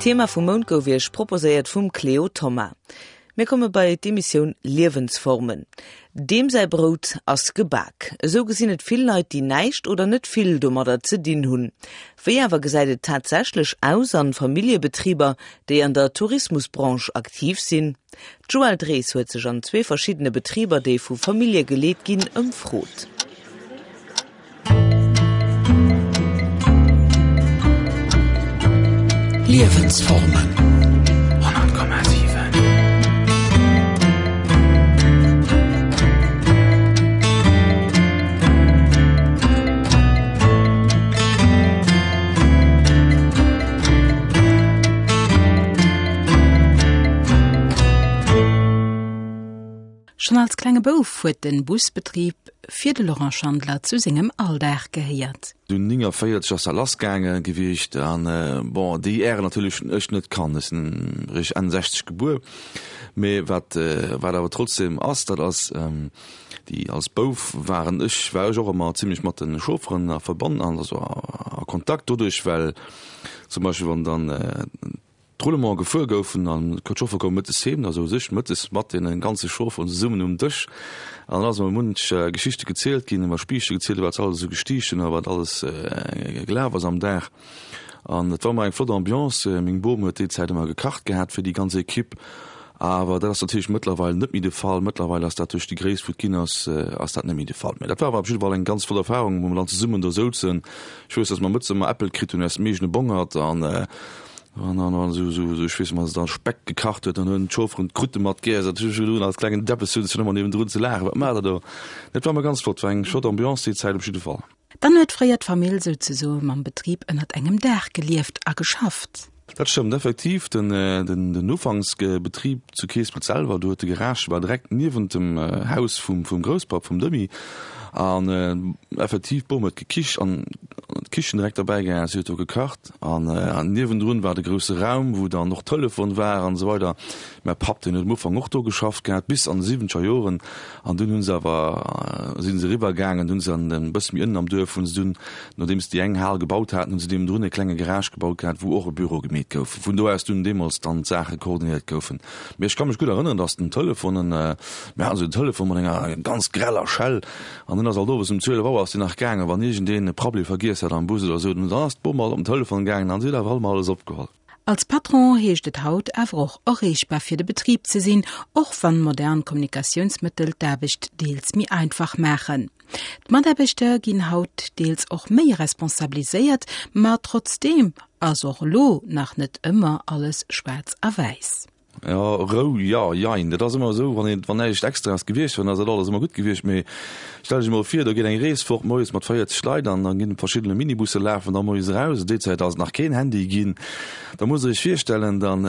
D'Thema vum Mount gouf Iech proposéiert vum Cléo Thoma. Mir komme bei d'Emissioun Liewensformen. Deem säi Brout ass gebak. Esou gesinn et vill Leit, déi näischt oder net vill domadder ze dinn hunn. Wéi awer gesäit et tatsächlech aus an Familljebetriber, déi an der Tourismusbranche aktiv sinn? D'Joëlle Drees huet sech an zwee verschiddene Betriber, déi vu Famillje geleet ginn, ëmfrot. Liewensformen 100,7. Schonn als klenge Bouf huet den Busbetrib fir de Laurent Schandler zu sengem Alldag gehéiert. Dunn 49 ass dat lass gaange gewiescht an bon déi Äre natierlech hunn ech net kannt, ech sinn eréischt Enn 60 gebuer, mee wat wat awer trotzdem ass, dat ass déi als Bouf waren ech war ech och ëmmer zimlech mat de Chaufferen a Verband an also a Kontakt doduerch well zum Beispill wann dann D'Roulement gefuer goufen an d'Chauffere koume mëttes heem, da souz ech mëttes mat deene ganze Chaufferen zesummen um Dësch an dann ass emol munch Geschichte gezielt ginn, iwwer Spiichte gezielt, wat se alles esou gestiicht hunn a wat alles gelaf ass am Dag. An et war ëmmer eng flott Ambiance. Meng Bom huet déi Zäit ëmmer gekacht gehat fir déi ganz Equipe, awer dat ass natierlech mëttlerweil net méi de Fall. Mëttlerweil ass dat duerch déi Gréisst wou et ginn ass, ass dat net méi de Fall. Mä dat war awer op jidde Fall eng ganz flott Erfahrung, wou mer dann zesummen do souzen. Ech weess, datt mer mëttes ëmmer Äppel kritt hunn aus dem eegene Bongert an An dann an esou esou esou ech weess mat dann Speck gekacht huet, dann hunn d'Chaufferen d'Krute mat geess. Dat hu ech elo als klengen Deppes hunn ech ëmmer niewendrun ze laachen, wat maacht der do? Dat war ëmmer ganz flott, war eng flott Ambiance déi Zäit op jidde Fall. Dann huet fréier d'Famill souzesoe mam Betrib ënnert engem Daach gelieft a geschafft. Dat stëmmt effektiv. Den den den Ufanksbetrib zu Keespelt selwer, do huet de Garage war direkt niewent dem Haus vum vum Grousspapp vum Demy an effektiv d'Bom huet gekicht an d'Kichen direkt derbäi gehat, si huet do gekacht. An niewendrun war de grousse Raum, wou dann och Telefon war an esou weider. Mäi Papp, deen huet am Ufank och do geschafft gehat, bis an de siwwenzeger Joren. An dunn hu se awer, si se eriwwer gaangen, hunn se an e bësse méi ënnen am Duerf, hunn se dunn, nodeems se déi eng Hal gebaut haten, hunn se niewendrun e klenge Garage gebaut gehat, wou och e Büro gemeet gouf, vun do aus dunn deemools dann d'Saache koordinéiert goufen. Mee ech ka mech gutt erënneren, datt den Telefon, mir haten esou en Telefon mat enger ganz greller Schell, An dunn ass alt owes um 12 Auer ass déi nach gaangen, wann iergendeen e Prabbeli vergiess hat am Bus oder esou, dann ass d'Bom alt op den Telefon gaangen an si huet awer alt emol alles opgeholl. Als Patron heescht et haut awer och erreechbar fir de Betrib ze sinn, och wann modern Kommunikatiounsmëttel d'Aarbecht deels méi einfach maachen. D'Mataarbechter ginn haut deels och méi responsabiliséiert, ma trotzdeem ass och elo nach net ëmmer alles schwaarz a wäiss. Jo, Rou, jo, jein. Dat ass ëmmer esou, wann een, wann näischt Extraes gewiescht wär, dann ass dat alles ëmmer gutt gewiescht. Mee stell dech emol vir, do geet eng Rees fort moies mat 40 Leit an da ginn verschiddene Minibusse lafen da moies eraus. Déi Zäit ass et nach keen Handy ginn. Da musst Der Iech virstellen, dann,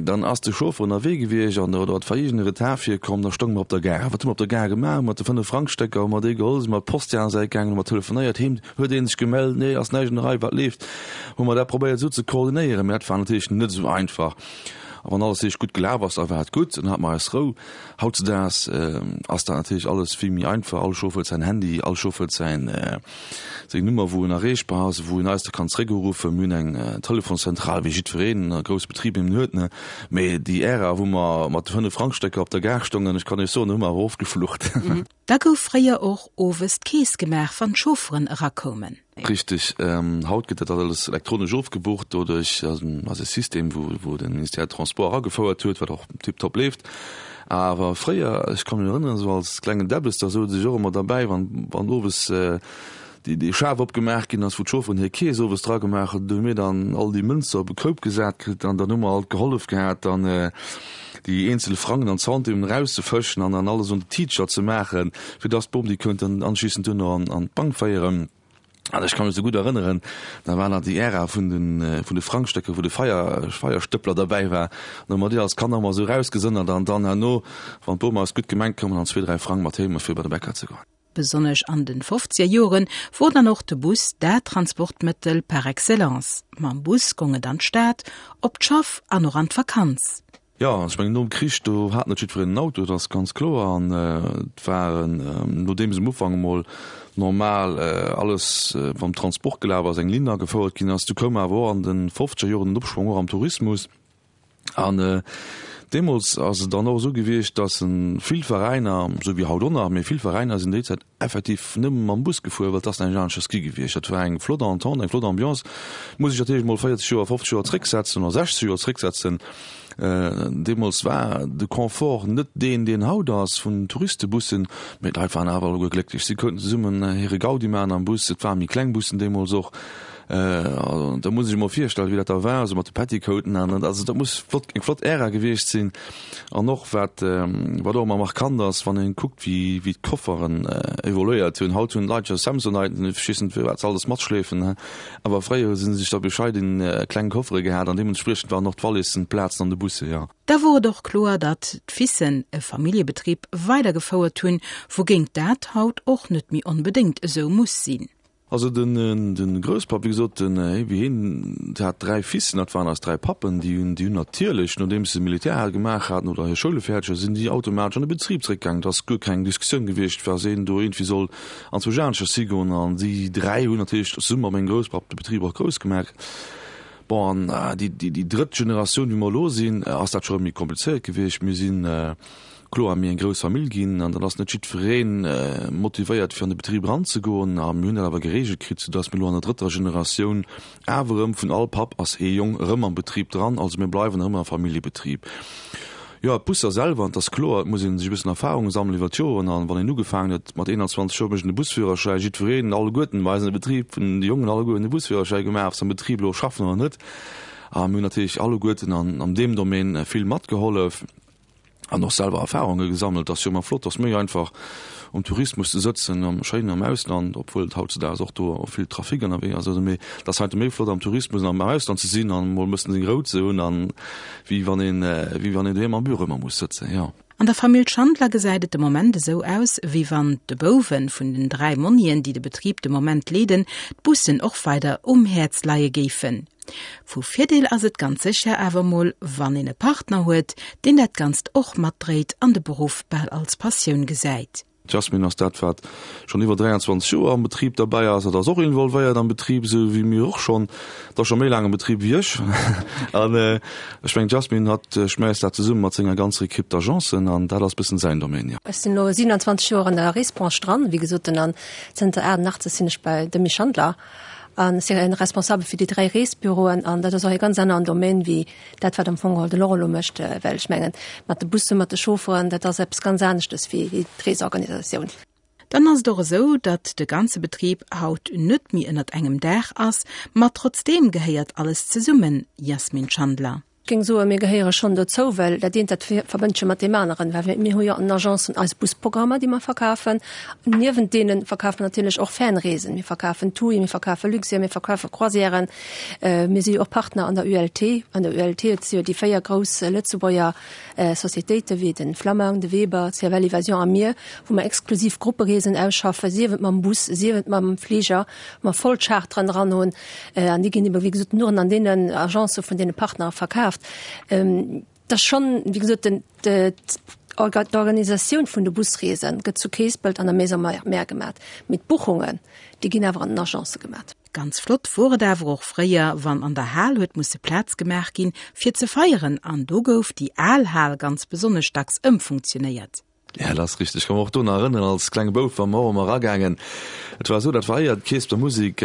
dann ass de Chauffer ënnerwee gewiescht an oder et war iergend e Retard virkomm, da stounge mer op der Gare. Wat hu mer op der Gare gemaach? Hu mer de Fënnef-Frang-Stécker hu mer déi geholl, si mer op d'Post déi aner Säit gaangen, hu mer telefonéiert heem, huet ee sech gemellt, nee, ass näischt an der Rei, wat leeft? Hu mer dat probéiert esou ze koordinéieren, mee dat war natierlech net esou einfach. A wann alles richteg gutt gelaf ass, da war et gutt, dann hate mer eis Rou. Hautzedaags ass dat natierlech alles vill méi einfach. All Chauffer huet säin Handy, all Chauffer huet säin, seng Nummer, wou en erreechbar ass, wou en eis da kann zeréckuruffen. Mir hunn eng Telefonszentral, wéi jiddwereen a grousse Betrib eben huet, ne. Mee déi Ära, wou mer mat de Fënnef-Frang-Stécker op der Gare stongen, ech kann Iech soen, do hu mer awer oft geflucht. Da gouf fréier och owes d'Keess gemaach, wann d'Chaufferen erakoumen. Richteg. Haut gëtt dat alles elektronesch ofgebucht. Doduerch ass e System, wou de Ministère des Transports agefouert huet, wat och tiptop leeft. Awer fréier, ech ka mech erënneren, esou als klengen Debbes, da souz ech och ëmmer derbäi, wann owes déi Schaf opgemaach ginn ass, wou d'Chaufferen hir Keess owes dra gemaach hunn, do hu mir dann all déi Mënzer op e Koup gesat kritt an dann hu mer alt gehollef gehat, dann déi eenzel Frangen an Centimen erauszefëschen an dann alles un de Tiitcher ze maachen, fir dass d'Bom déi könnt dann anschließend duerno an an d'Bank féieren. An ech ka mech esou gutt erënneren, da war nach déi Ära vun de vun de Frangstécker, wou de Feier Feierstëppler derbäi war. An da hu mer déi als Kanner ëmmer esou erausgesënnert an dann herno, wann d'Bom eis gutt gemengt koum, dann zwee, dräi Frang mat heem fir bei de Bäcker ze goen. Besonnesch an den fofzeger Joren wor dann och de Bus dat Transportmëttel par excellence. Mam Bus gong et an d'Stad, op d'Schaff an och an d'Vakanz. Jo, ech mengen nom Krich, do hat net jiddwereen en Auto, dat ass ganz kloer. An et waren, nodeems um Ufank emol normal alles mam Transport gelaf ass, eng Linn agefouert ginn ass, du koum awer och an de fofzeger Joren den Opschwong och am Tourismus. An deemools ass et dann och esou gewiescht, datt vill Veräiner, esou wéi haut och nach, mee vill Veräiner sinn déi Zäit effektiv nëmme mam Bus gefuer, well et ass näischt aneschters gi gewiescht. Dat war eng flott Entente, eng flott Ambiance. Muss ech natierlech emol 40 Joer, 50 Joer zrécksetzen oder 60 Joer zrécksetzen. Deemools war de Confort net deen, deen haut ass vun den Touristebussen, mee d'Leit waren awer alleguer glécklech. Si konnten zesummen hire Gaudi maachen am Bus. Et ware méi kleng Bussen deemools och. Da muss ech emol virstellen, wéi dat da war, esou mat de Petticoaten an. Also dat muss flott, eng flott Ära gewiescht sinn. An och wat, wat och ëmmer markant ass, wann een kuckt, wéi, wéi d'Kofferen evoluéiert hunn. Haut hunn d'Leit jo Samsonite, ech weess net, wat se alles matschleefen, awer fréier hu se sech da bescheiden kleng Koffere gehat an deementspriechend waren och d'Wallissen, d'Plazen an de Busse, jo. Da wor et och kloer, datt d'Fissen e Familljebetrib weidergefouert hunn, wougéint dat haut och net méi onbedéngt esou muss sinn. Also den den Grousspapp, wéi gesot, den wéi hien hat 3 Fissen, dat waren eis 3 Pappen, déi hunn déi hunn natierlech, nodeems se Militär hat gemaach haten oder hir Schoule fäerdeg haten, sinn déi automatesch an de Betrib zréckgaangen. Et ass guer keng Diskussioun gewiescht, was een do iergendwéi soll anzwousch aneschters higoen. An déi 3 hunn natierlech zesumme mat mengem Grousspapp de Betrib och grouss gemaach. Bon, an déi déi drëtt Generatioun, wéi mer elo sinn, ass dat scho méi komplizéiert gewiescht. Mir sinn Kloer, mir eng grouss Famill ginn an dann ass net jiddweree motivéiert fir an de Betrib eranzegoen. A mir hunn dat awer gereegelt kritt, soudass mir elo an der drëtter Generatioun awer erëm vun all Papp ass ee Jong erëm am Betrib dran. Also mir bleiwen erëm am Familljebetrib. Jo, d'Busser selwer, an et ass kloer, et muss ee sech e bëssen Erfahrung sammelen iwwer d'Joren. An wann een ugefaangen huet mat 21 Joer mécht een de Busführerschäi, jiddwereen, alleguerten bei eis an de Betrib, vun de Jongen alleguer hunn de Busführerschäi gemaach, ob se am Betrib elo schaffen oder net. A mir hunn natierlech alleguerten an deem Domaine vill matgehollef. an och selwer Erfahrunge gesammelt. Ass jo ëmmer flott, ass méi einfach um Tourismus ze sëtzen am schéinen am Ausland, obwuel et hautzedaags och do vill Trafic ënnerwee ass. Also mee et ass heiansdo méi flott am Tourismus an am Ausland ze sinn an emol e bëssen seng Rou ze hunn an wéi wann een wéi wann een doheem am Büro ëmmer muss sëtzen, jo. An der Famill Schandler gesäit et de Moment esou aus, wéi wann de Bouwe vun den 3 Monnien, déi de Betrib de Moment leeden, d'Bussen och weider um Häerz leie géifen. Vu Virdeel ass et ganz sécher awer mol, wann een e Partner huet, deen dat Ganzt och matdréit an de Beruff bal als Passioun gesäit. D'Jasmine ass dat, wat schonn iwwer 23 Joer am Betrib derbäi ass. Hatt ass och involvéiert am Betrib, esou wéi mir och schonn. Hatt ass scho méi laang am Betrib wéi ech. An ech mengen, d'Jasmine, hatt schmäisst dat zesumme mat senger ganzer Equipe d'Agencen an dat ass bëssen säin Domaine, jo. Ech sinn elo 27 Joer an der Reesbranche dran, wéi gesot, an zënter 88 sinn ech bei Demy Schandler. An ech sinn responsabel fir déi 3 Reesbüroen an dat ass och e ganz aneren Domaine wéi dat, wat am Fong geholl de Laurent elo mécht, well ech mengen, mat de Bussen, mat de Chaufferen, dat ass eppes ganz aneschtes wéi d'Reesorganisatioun. Dann ass et och esou, datt de ganze Betrib haut net méi ënnert engem Daach ass, ma trotzdeem gehéiert alles zesummen, Jasmin Schandler. Ech géing soen, mir gehéiere schonn dozou, well dat eent, dat verbënnt sech jo mat deem aneren, well mir hu jo an den Agencen eis Busprogrammer, déi mer verkafen. Niewent deene verkafe mer natierlech och Fernreesen. Mir verkafen TUI, mir verkafe Luxair, mir verkafe Croisièren. Mir si jo och Partner an der ULT. An der ULT, et si jo déi 4 grouss Lëtzebuerger Societéiten, wéi de Flammang, de Weber, CFL Evasion a mir, wou mer exklusiv Gruppereesen ausschaffen, sief et mam Bus, sief et mam Fliger, wou mer voll Charteren dran hunn. An déi ginn ebe wéi gesot nuren an deenen Agencë vun deene Partnere verkaaft. Et ass schonn, wéi gesot, den, d'Organisatioun vun de Busreese gëtt zu Keespelt an der Maison Mère gemat, mee d'Buchungen, déi ginn awer an den Agencë gemat. Ganz flott wor et awer och fréier, wann an der Hal huet musse Plaz gemaach ginn, fir ze feieren, an do gouf déi al Hal ganz besonnesch dacks ëmfunktionéiert. Ja, dat ass richteg. Ech ka mech och do nach erënneren, als klenge Bouf war mer och ëmmer eragaangen. Et war esou, dat war éier d'Keespeler Musek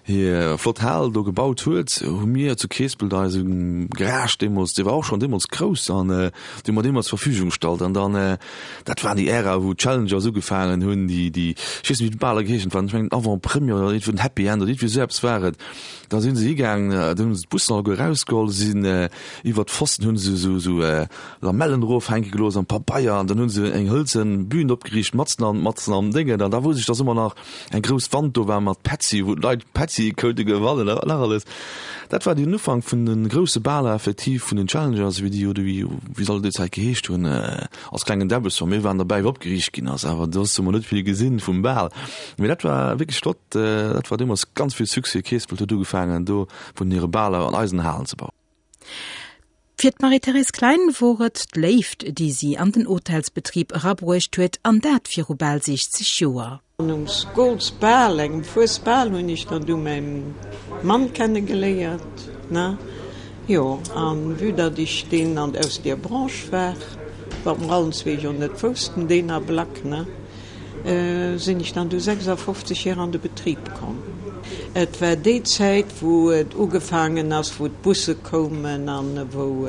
hir flott Hal do gebaut huet, hu mir zu Keespelt eise Garage deemools, dee war och schonn deemools grouss, an déi hu mer deemools zur Verfügung gestallt. An dann, dat waren déi Ära, wou d'Challengers ugefaangen hunn, déi, déi, ech weess net, wéi d'Baler geheeschen hunn, ech mengen Avant-Première oder iergendwou den Happy End oder iergendwéi esou eppes war et. Da si se higaangen, dann hu se d'Bussen alleguer erausgeholl, sinn iwwert d'Pfosten, hu se esou, esou Lamellen erofhänke gelooss an Pabeier an dann hunn se eng hëlzen Bühn opgeriicht matzen an matzen am Déngen an da wousst ech dass ëmmer nach eng grouss Wand do war mat Petzi wou d'Leit Petzi koute gewannen a wat nach alles. Dat war den Ufank vun de grousse Baler effektiv vun den Challengers wéi déi oder wéi wéi se all déi Zäit geheescht hunn als klengen Däbbes. Mir waren derbäi wéi opgeriicht ginn ass awer soss hu mer net vill gesinn vum Bal. Mee dat war wierklech flott, dat war deemools ganz vill Succès. Keespelt huet ugefaangen do vun hire Baler an eisen Halen ze bauen. Fir d'Marie-Thérèse Klein wor et d'Léift, déi si an den Hotelsbetrib erabruecht huet, an dat viru bal 60 Joer. An um Skolsbal, engem Fuesbal, hunn ech dann du mäi Mann kenne geléiert, ne? Jo, an vue datt ech deen an aus deer Branche war, wat mer allen zwee jo net woussten, deen Ablack, ne? Sinn ech dann du 56 hier an de Betrib komm. Et war déi Zäit wou et ugefaangen ass, wou d'Busse koumen an wou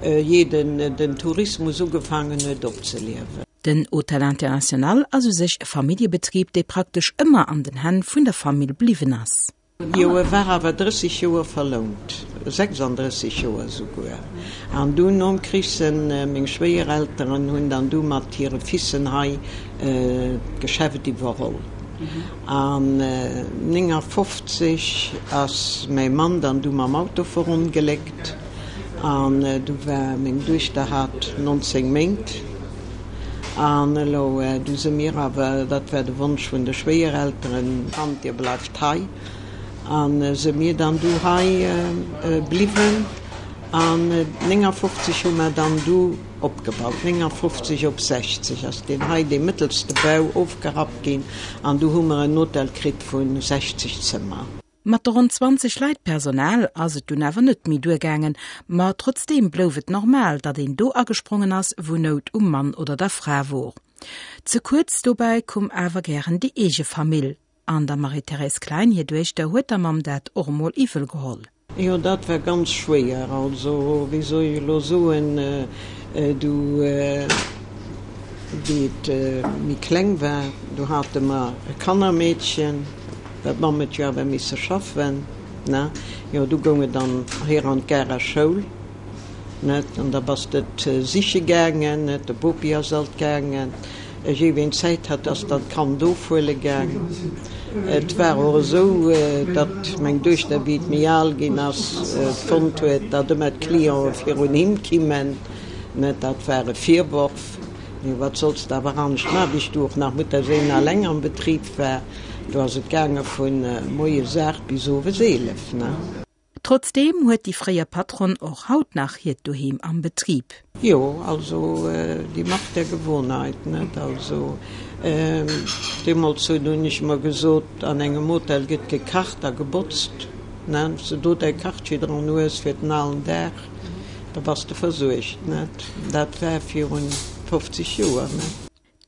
jeden den Tourismus ugefaangen huet opzeliewen. Den Hôtel International ass u sech e Familljebetrib, dee praktesch ëmmer an den Hänn vun der Famill bliwwen ass. Jo, e war awer 30 Joer verlount, 36 Joer souguer. An du nom Krich sen meng Schwéierelteren hunn dann du mat hire Fissen hei d'Geschäft iwwerholl. An 59 ass mäi Mann dann du mam Auto verongléckt an du war meng Duechter hat 19 Méint. An elo du se mir awer, dat war de Wonsch vun de Schwéierelteren, Kand, dir bleift hei. A se mir dann du hei bliwwen. An 59 hu mer dann du opgebaut. 59 op 60 ass deen hei, dee mëttelste Bau, ofgerappt ginn an du hu mer en Hotel kritt vu 60 Zëmmer. Mat de ronn 20 Leit Personal ass et dunn awer net méi duergaangen, ma trotzdeem blouf et normal, datt een do agesprongen ass, wou Nout um Mann oder der Fra wor. Ze kuerz dobäi koum awer gären déi eege Famill, an der Marie-Thérèse Klein hir Duechter huet der Mamm dat och emol iwwel geholl. Jo, dat war ganz schwéier. Also, wéi soll ech elo soen, du, wéi et méi kleng war, du hate mer e Kannermeedchen, Well d'Mamm huet jo awer misse schaffen, ne? Jo, du goung et dann hier an d'Garer Schoul, net? An da bass de et siche gaangen, net? De Bopi ass alt gaangen. Jee ween Zäit hat, ass dann d'Kand ofhuele gaang. Et war och esou, datt meng Duechter, wéi et méi al ginn ass, fonnt huet, datt ëmmer d'Clienten virun him kimmen, net? Dat war e Virworf. Mee wat solls de awer anescht maachen, wéi ech du och nach Mutterséin alleng am Betrib war. Do ass et gaange vu moies 8 bis owes 11, ne? Trotzdeem huet déi fréier Patronne och haut nach hiert Doheem am Betrib. Jo, also die Macht der Gewohnheit, net? Also deemools hunn ech mer gesot, an engem Hotel gëtt gekacht a gebotzt, ne? Wann s de do däi Kachtschi dran hues fir den alen Dag, da bass de versuergt, net? Dat war virun 50 Joer, ne?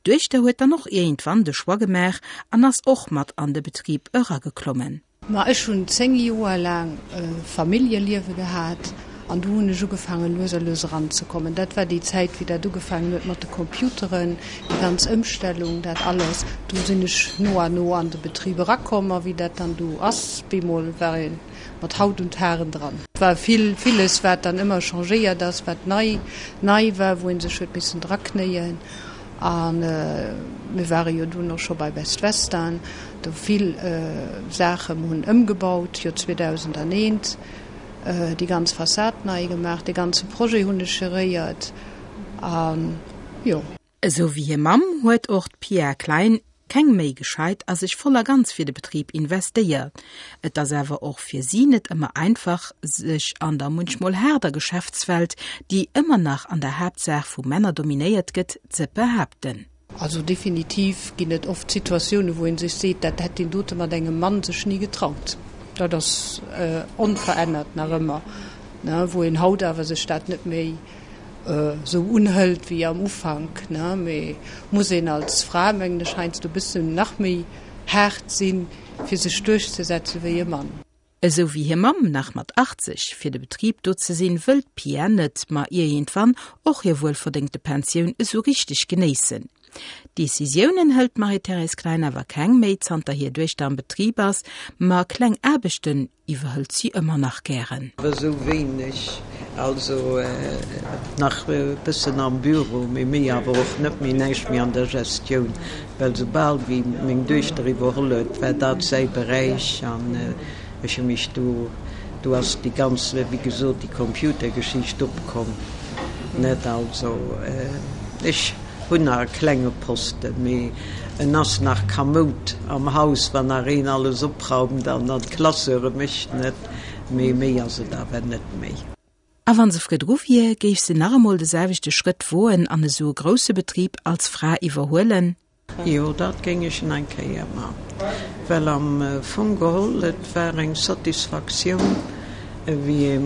D'Duechter huet dann och iergendwann de Choix gemaach an ass och mat an de Betrib erageklommen. Ma ech hunn 10 Joer laang e Familljeliewe gehat an du hunn ech ugefaangen lues a lues eranzekommen. Dat war déi Zäit wéi dat ugefaangen huet mat de Computeren, déi ganz Ëmstellung, dat alles. Du sinn ech no a no an de Betrib erakomm a wéi dat dann du ass, bemol war ee mat Haut und Haaren dran. Et war vill, villes wat dann ëmmer changéiert ass, wat nei, nei war, wou ee sech huet missen draknéien. A mir ware jo dunn och scho bei Best Western, do vill Saache hunn ëmgebaut, jo 2001 déi ganz Fassad nei gemaach, dee ganze Projet hunn ech geréiert a jo. Esou wéi hir Mamm huet och d'Pia Klein keng Méi gescheit a sech voll a ganz fir de Betrib investéiert. Et ass awer och fir si net ëmmer einfach, sech an der munchmol haarder Geschäftswelt, déi ëmmer nach an der Haaptsaach vu Männer dominéiert gëtt, ze behaapten. Also definitiv ginn et oft Situatiounen, wou ee sech seet, dat hätt deen dote mat engem Mann sech ni getraut. Dat ass onverännert nach ëmmer, wou een haut awer sech dat net méi esou unhëlt wéi am Ufank, ne, mee muss een als Fra, mengen ech, heiansdo e bëssen nach méi haart sinn, fir sech duerchzesetze wéi e Mann. Esou wéi hir Mamm nach mat 80 fir de Betrib do ze sinn, wëll d'Pia net, ma ierjendwann och hir wuelverdéngte Pensioun esou richteg genéissen. Decisiounen hëlt d'Marie-Thérèse Klein awer keng méi, zanter hir Duechter am Betrib ass, ma kleng Aarbechten iwwerhëlt si ëmmer nach gären. Awer esou wéineg, also nach e bëssen am Büro, mee méi awer och net méi, näischt méi an der Gestioun, well soubal wéi meng Duechter iwwerholl huet, war dat säi Beräich an ech hu mech do, do ass déi ganz, wéi gesot, déi Computergeschicht opkomm, net, also ech. Hunn nach e klenge Posten, mee en ass nach kamoud am Haus, wann nach een alles opraumt an an d'Classeure mécht, net? Mee méi ass et awer net méi. A wann se virdru wier, géif se nach emol de selwechte Schrëtt woen an esou e grousse Betrib als Fra iwwerhuelen? Jo, dat géing ech nach eng Kéier man, well am Fong geholl, et war eng Satisfaktioun, wéi ee.